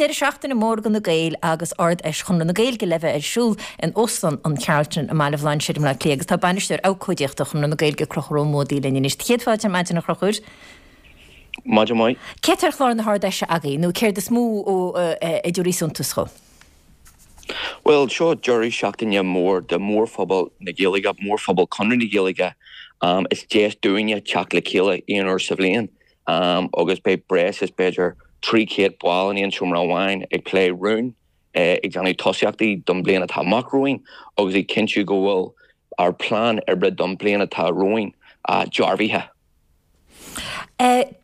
deireadh seachtaine mór do na Gaeil agus Ard-Fheis Chonradh na Gaeilge le bheith ar siúl in Óstlann an Charlton i mBaile Bhlainséir i mBleá Cliath agus tá Bainisteoir Abhcóideachta Chonradh na Gaeilge, Conchúr Ó Muadaigh linn anois. Céad fáilte ar maidin a Chonchúir. Maidin mhaith. Céard tá ar chlár na hArd-Fheise agaibh nó céard is mó a dtabharfaidh suntas dhó? Bhuel, seo deireadh seachtaine mór do mhórphobal na Gaeilge, mórphobal Chonradh na Gaeilge. Is deis dúinne teacht le chéile aon uair sa bhliain agus beidh breis is b'fhéidir 300 ball in aon seomra amháin ag plé rún, ag déanamh tosaíochtaí don bhliain atá amach romhainn agus ag cinntiú go bhfuil ár bplean oibre don bhliain atá romhainn dearbhaithe.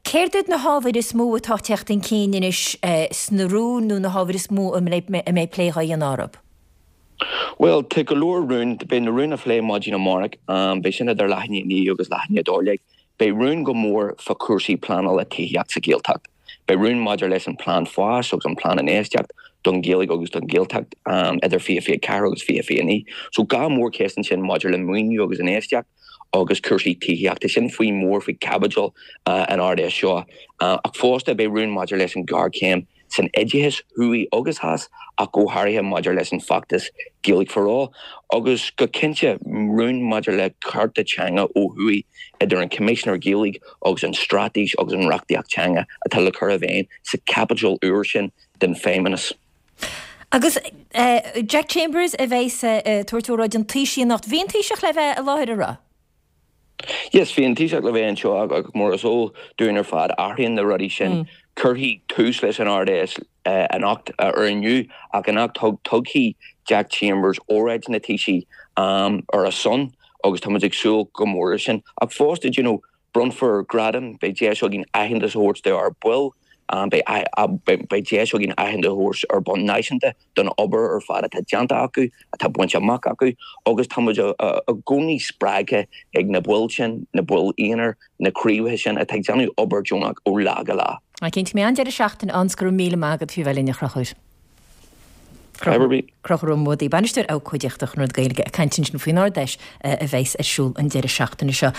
Céard iad na hábhair is mó atá ag teacht chun cinn anois sna rúin nó na hábhair is mó a mbeidh plé á dhéanamh orthu? Bhuel, tá go leor rún. Beidh na rúin á phlé maidin amárach. Beidh sin idir leath i ndiaidh a 9 agus leath i ndiaidh 12. Beidh rún go mór fá chúrsaí pleanála tithíochta sa Ghaeltacht. Beidh rún maidir leis an Plean Fáis agus an Plean Infheistíocht don Ghaeilge agus don Ghaeltacht idir 2024 agus 2029. So dhá mhórcheist ansin maidir le maoiniú agus infheistíocht agus cúrsaí tithíochta. Sin faoi mór faoi chaibidil an Ard-Fheis seo. Ach fosta beidh rún maidir leis an ghéarchéim san oideachas, thuaidh agus theas, ach go háirithe maidir leis an bhfeachtas Gaeilge for All, agus go cinnte rún maidir le cearta teanga ó thuaidh idir an Coimisinéir Gaeilge agus an straitéis agus an reachtaíocht teanga atá le cur i bhfeidhm sa chaibidil úr sin den Feidhmeannas. Agus Jack Chambers a bheas ag tabhairt óráid an Taoisigh anocht. Bhí an Taoiseach le bheith i láthair, an raibh? Yes, bhí an Taoiseach le bheith anseo ach mar is eol dúinn ar fad, athraíonn na rudaí sin. Cuirfidh tús leis an Ard-Fheis anocht ar inniu ach anocht tugfaidh Jack Chambers óráid na Taoisigh ar a son agus tá muid ag súil go mór leis sin. Ach fosta, do you know, Bronnfar gradaim, beidh deis againn aitheantas a thabhairt d'ár baill, beidh deis againn aitheantas a thabhairt ar bhonn náisiúnta don obair ar fad atá déanta acu, atá bainte amach acu agus tá muid i gcónaí spreagtha ag na baill sin, na baill aonair, na craobhacha sin atá ag déanamh obair deonach ó lá go lá. Cinnte, beidh an-deireadh seachtaine ann 's go raibh míle maith agat faoi bheith linn a Chonchúir. Conchúr Ó Muadaigh, Bainisteoir Abhcóideachta Chonradh na Gaeilge ag caint ansin faoin Ard-Fheis a bheas ar siúl an deireadh seachtaine seo.